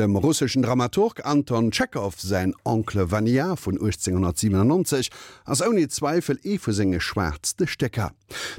Dem russeschen Dramaturg Anton Tschechow säin Oncle Vania vun 1897 ass ouni Zweifel ee vu senge schwaartste Stécker.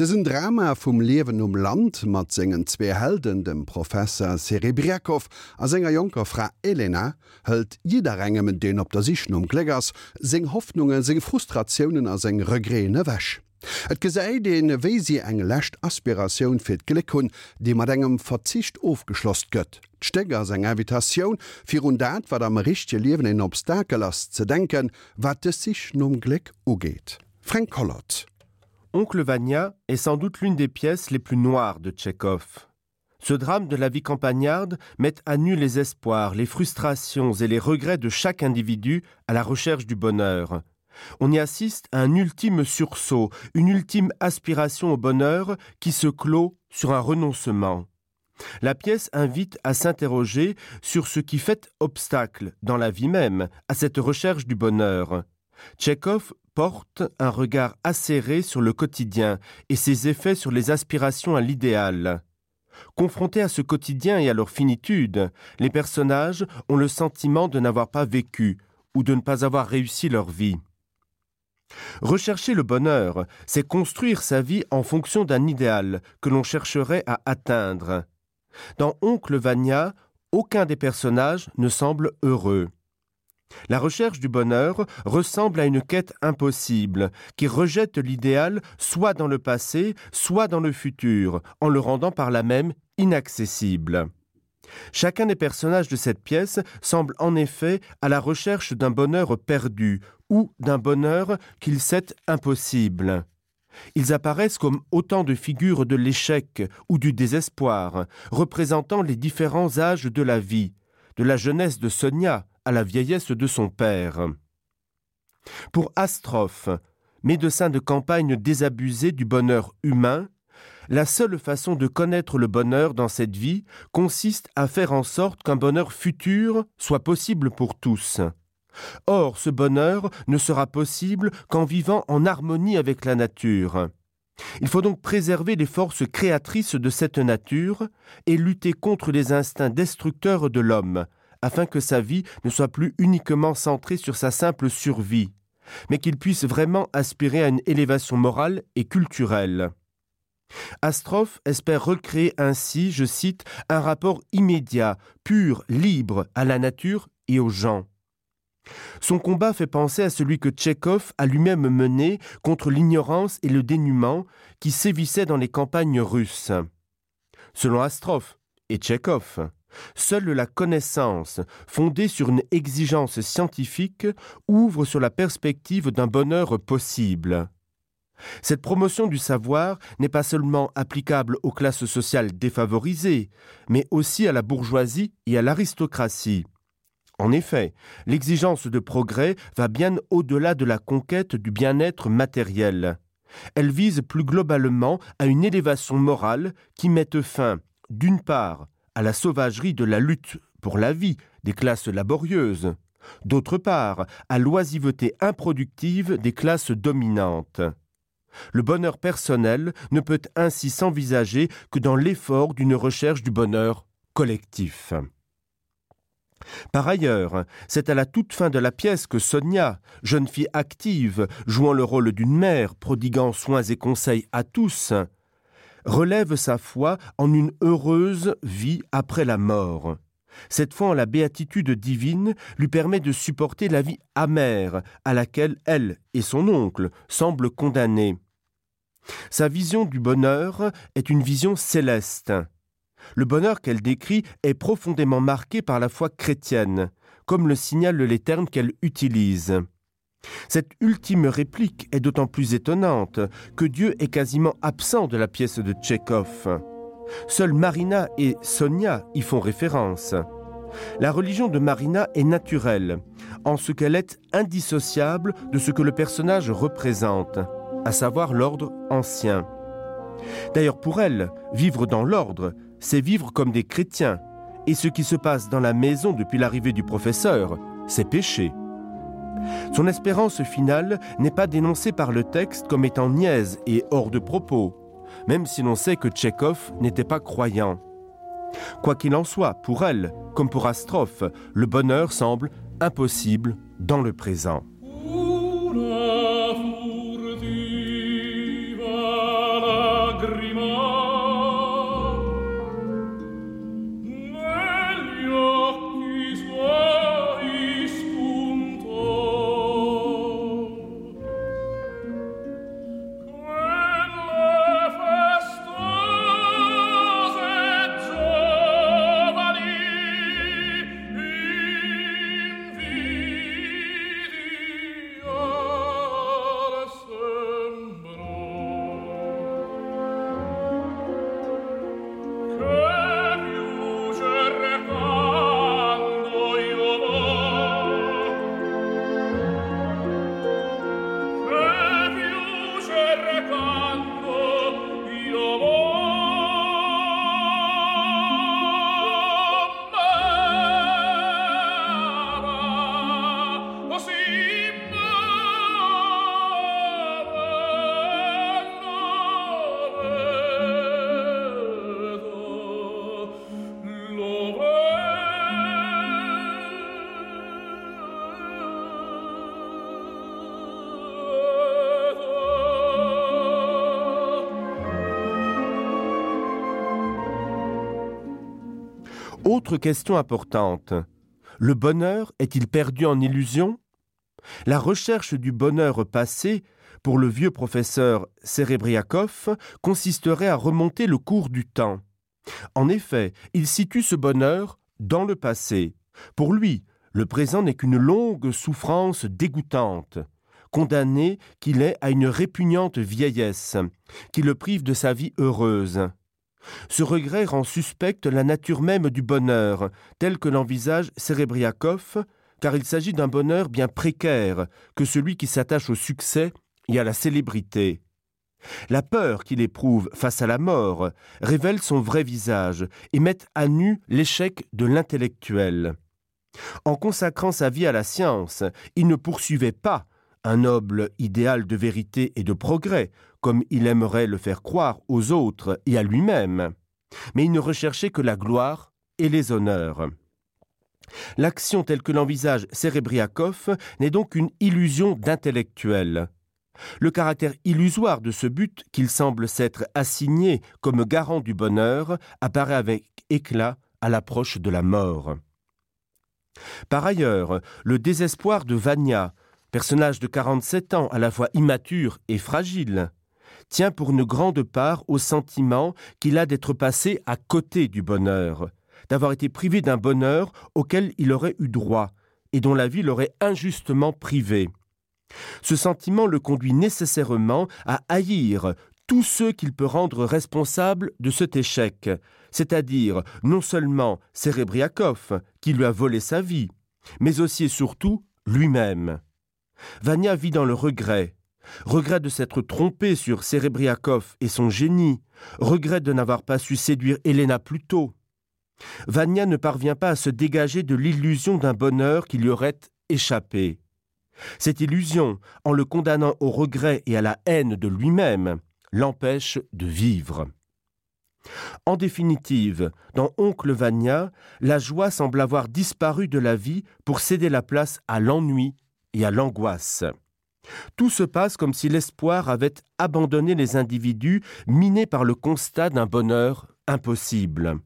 Dësen Drama vum Liewen um Land mat sengen zwee Helden, dem Professer Serebrjakow a senger jonker Fra Elena, hëlt jidderengem, deen op der Sich nom Gléck ass, seng Hoffnungen, seng Frustratiounen a seng Regreten ewech. Et gesäit een, wéi si eng lescht Aspiratioun fir d'Gléck hunn, déi mat engem Verzicht ofgeschloss gëtt. D'Stéck ass eng Invitatioun, fir un dat, wat am richtege Liewen een Obstakel ass, ze denken, wat dës Sich nom Gléck ugeet. Fränk Collot. Oncle Vania est sans doute l'une des pièces les plus noires de Tchekhov. Ce drame de la vie campagnarde met à nu les espoirs, les frustrations et les regrets de chaque individu à la recherche du bonheur. On y assiste à un ultime sursaut, une ultime aspiration au bonheur qui se clôt sur un renoncement. La pièce invite à s'interroger sur ce qui fait obstacle dans la vie même à cette recherche du bonheur. Tchekhov porte un regard acéré sur le quotidien et ses effets sur les aspirations à l'idéal. Confrontés à ce quotidien et à leur finitude, les personnages ont le sentiment de n'avoir pas vécu ou de ne pas avoir réussi leur vie. Rechercher le bonheur, c'est construire sa vie en fonction d'un idéal que l'on chercherait à atteindre. Dans Oncle Vania, aucun des personnages ne semble heureux. La recherche du bonheur ressemble à une quête impossible qui rejette l'idéal soit dans le passé, soit dans le futur, en le rendant par là même inaccessible. Chacun des personnages de cette pièce semble en effet à la recherche d'un bonheur perdu ou d'un bonheur qu'il sait impossible. Ils apparaissent comme autant de figures de l'échec ou du désespoir, représentant les différents âges de la vie, de la jeunesse de Sonia à la vieillesse de son père. Pour Astrophe, médecin de campagne désabusé du bonheur humain, la seule façon de connaître le bonheur dans cette vie consiste à faire en sorte qu'un bonheur futur soit possible pour tous. Or, ce bonheur ne sera possible qu'en vivant en harmonie avec la nature. Il faut donc préserver les forces créatrices de cette nature et lutter contre les instincts destructeurs de l'homme, afin que sa vie ne soit plus uniquement centrée sur sa simple survie, mais qu'il puisse vraiment aspirer à une élévation morale et culturelle. Astrophe espère recréer ainsi, je cite, un rapport immédiat, pur, libre à la nature et aux gens. Son combat fait penser à celui que Tchekhov a lui-même mené contre l'ignorance et le dénuement qui sévissaient dans les campagnes russes. Selon Astrophe et Tchekhov, seule la connaissance, fondée sur une exigence scientifique, ouvre sur la perspective d'un bonheur possible. Cette promotion du savoir n'est pas seulement applicable aux classes sociales défavorisées, mais aussi à la bourgeoisie et à l'aristocratie. En effet, l'exigence de progrès va bien au-delà de la conquête du bien-être matériel. Elle vise plus globalement à une élévation morale qui mette fin, d'une part, à la sauvagerie de la lutte pour la vie des classes laborieuses, d'autre part, à l'oisiveté improductive des classes dominantes. Le bonheur personnel ne peut ainsi s'envisager que dans l'effort d'une recherche du bonheur collectif. Par ailleurs, c'est à la toute fin de la pièce que Sonia, jeune fille active, jouant le rôle d'une mère, prodiguant soins et conseils à tous, relève sa foi en une heureuse vie après la mort. Cette foi en la béatitude divine lui permet de supporter la vie amère à laquelle elle et son oncle semblent condamnés. Sa vision du bonheur est une vision céleste. Le bonheur qu'elle décrit est profondément marqué par la foi chrétienne, comme le signalent les termes qu'elle utilise. Cette ultime réplique est d'autant plus étonnante que Dieu est quasiment absent de la pièce de Tchekhov. Seuls Marina et Sonia y font référence. La religion de Marina est naturelle, en ce qu'elle est indissociable de ce que le personnage représente, à savoir l'ordre ancien. D'ailleurs pour elle, vivre dans l'ordre, c'est vivre comme des chrétiens, et ce qui se passe dans la maison depuis l'arrivée du professeur, c'est péché. Son espérance finale n'est pas dénoncée par le texte comme étant niaise et hors de propos, même si l'on sait que Tchekhov n'était pas croyant. Quoi qu'il en soit, pour elle, comme pour Astrophe, le bonheur semble impossible dans le présent. Autre question importante. Le bonheur est-il perdu en illusion? La recherche du bonheur passé pour le vieux professeur Serebriakov consisterait à remonter le cours du temps. En effet, il situe ce bonheur dans le passé. Pour lui, le présent n'est qu'une longue souffrance dégoûtante, condamné qu'il est à une répugnante vieillesse, qui le prive de sa vie heureuse. Ce regret rend suspecte la nature même du bonheur, tel que l'envisage Serebriakov, car il s'agit d'un bonheur bien précaire que celui qui s'attache au succès et à la célébrité. La peur qu'il éprouve face à la mort révèle son vrai visage et met à nu l'échec de l'intellectuel. En consacrant sa vie à la science, il ne poursuivait pas un noble idéal de vérité et de progrès, comme il aimerait le faire croire aux autres et à lui-même, mais il ne recherchait que la gloire et les honneurs. L'action telle que l'envisage Serebriakov n'est donc qu'une illusion d'intellectuel. Le caractère illusoire de ce but qu'il semble s'être assigné comme garant du bonheur apparaît avec éclat à l'approche de la mort. Par ailleurs, le désespoir de Vania, personnage de 47 ans à la fois immature et fragile, tient pour une grande part au sentiment qu'il a d'être passé à côté du bonheur, d'avoir été privé d'un bonheur auquel il aurait eu droit et dont la vie l'aurait injustement privé. Ce sentiment le conduit nécessairement à haïr tous ceux qu'il peut rendre responsables de cet échec, c'est-à-dire non seulement Serebriakov, qui lui a volé sa vie, mais aussi et surtout lui-même. Vania vit dans le regret, regret de s'être trompé sur Serebriakov et son génie, regret de n'avoir pas su séduire Elena plus tôt. Vania ne parvient pas à se dégager de l'illusion d'un bonheur qui lui aurait échappé. Cette illusion, en le condamnant au regret et à la haine de lui-même, l'empêche de vivre. En définitive, dans Oncle Vania, la joie semble avoir disparu de la vie pour céder la place à l'ennui et à l'angoisse. Tout se passe comme si l'espoir avait abandonné les individus minés par le constat d'un bonheur impossible.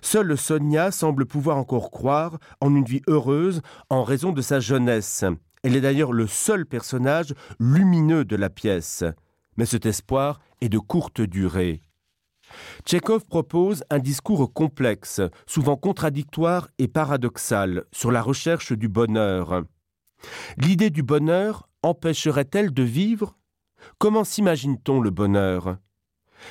Seule Sonia semble pouvoir encore croire en une vie heureuse en raison de sa jeunesse. Elle est d'ailleurs le seul personnage lumineux de la pièce. Mais cet espoir est de courte durée. Tchekhov propose un discours complexe, souvent contradictoire et paradoxal sur la recherche du bonheur. L'idée du bonheur empêcherait-elle de vivre Comment s'imagine-t-on le bonheur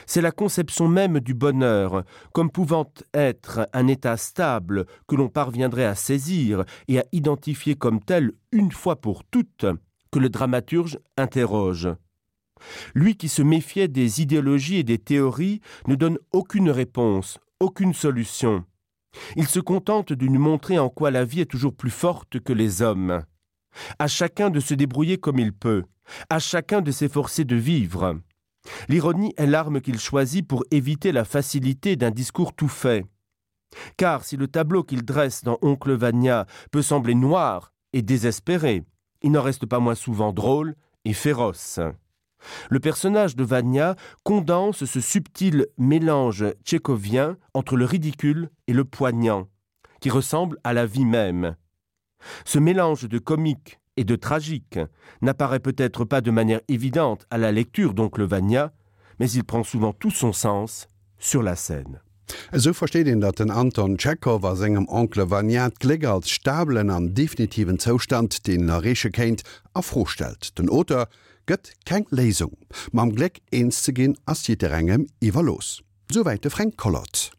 C'est la conception même du bonheur, comme pouvant être un état stable que l'on parviendrait à saisir et à identifier comme tel une fois pour toutes, que le dramaturge interroge. Lui qui se méfiait des idéologies et des théories ne donne aucune réponse, aucune solution. Il se contente de nous montrer en quoi la vie est toujours plus forte que les hommes. À chacun de se débrouiller comme il peut, à chacun de s'efforcer de vivre. L'ironie est l'arme qu'il choisit pour éviter la facilité d'un discours tout fait. Car si le tableau qu'il dresse dans Oncle Vania peut sembler noir et désespéré, il n'en reste pas moins souvent drôle et féroce. Le personnage de Vania condense ce subtil mélange tchécovien entre le ridicule et le poignant, qui ressemble à la vie même. Ce mélange de comique et de tragique n'apparaît peut-être pas de manière évidente à la lecture d'oncle Vania, mais il prend souvent tout son sens sur la scène. Esou versteet een, datt den Anton Tschechow a sengem Oncle Vania d'Gléck als stabelen an definitiven Zoustand, deen en erreeche kéint, a Fro stellt. Den Auteur gëtt keng Léisung. Mam Gléck eens ze ginn, ass jidderengem iwwerlooss. Souwäit de Fränk Collot.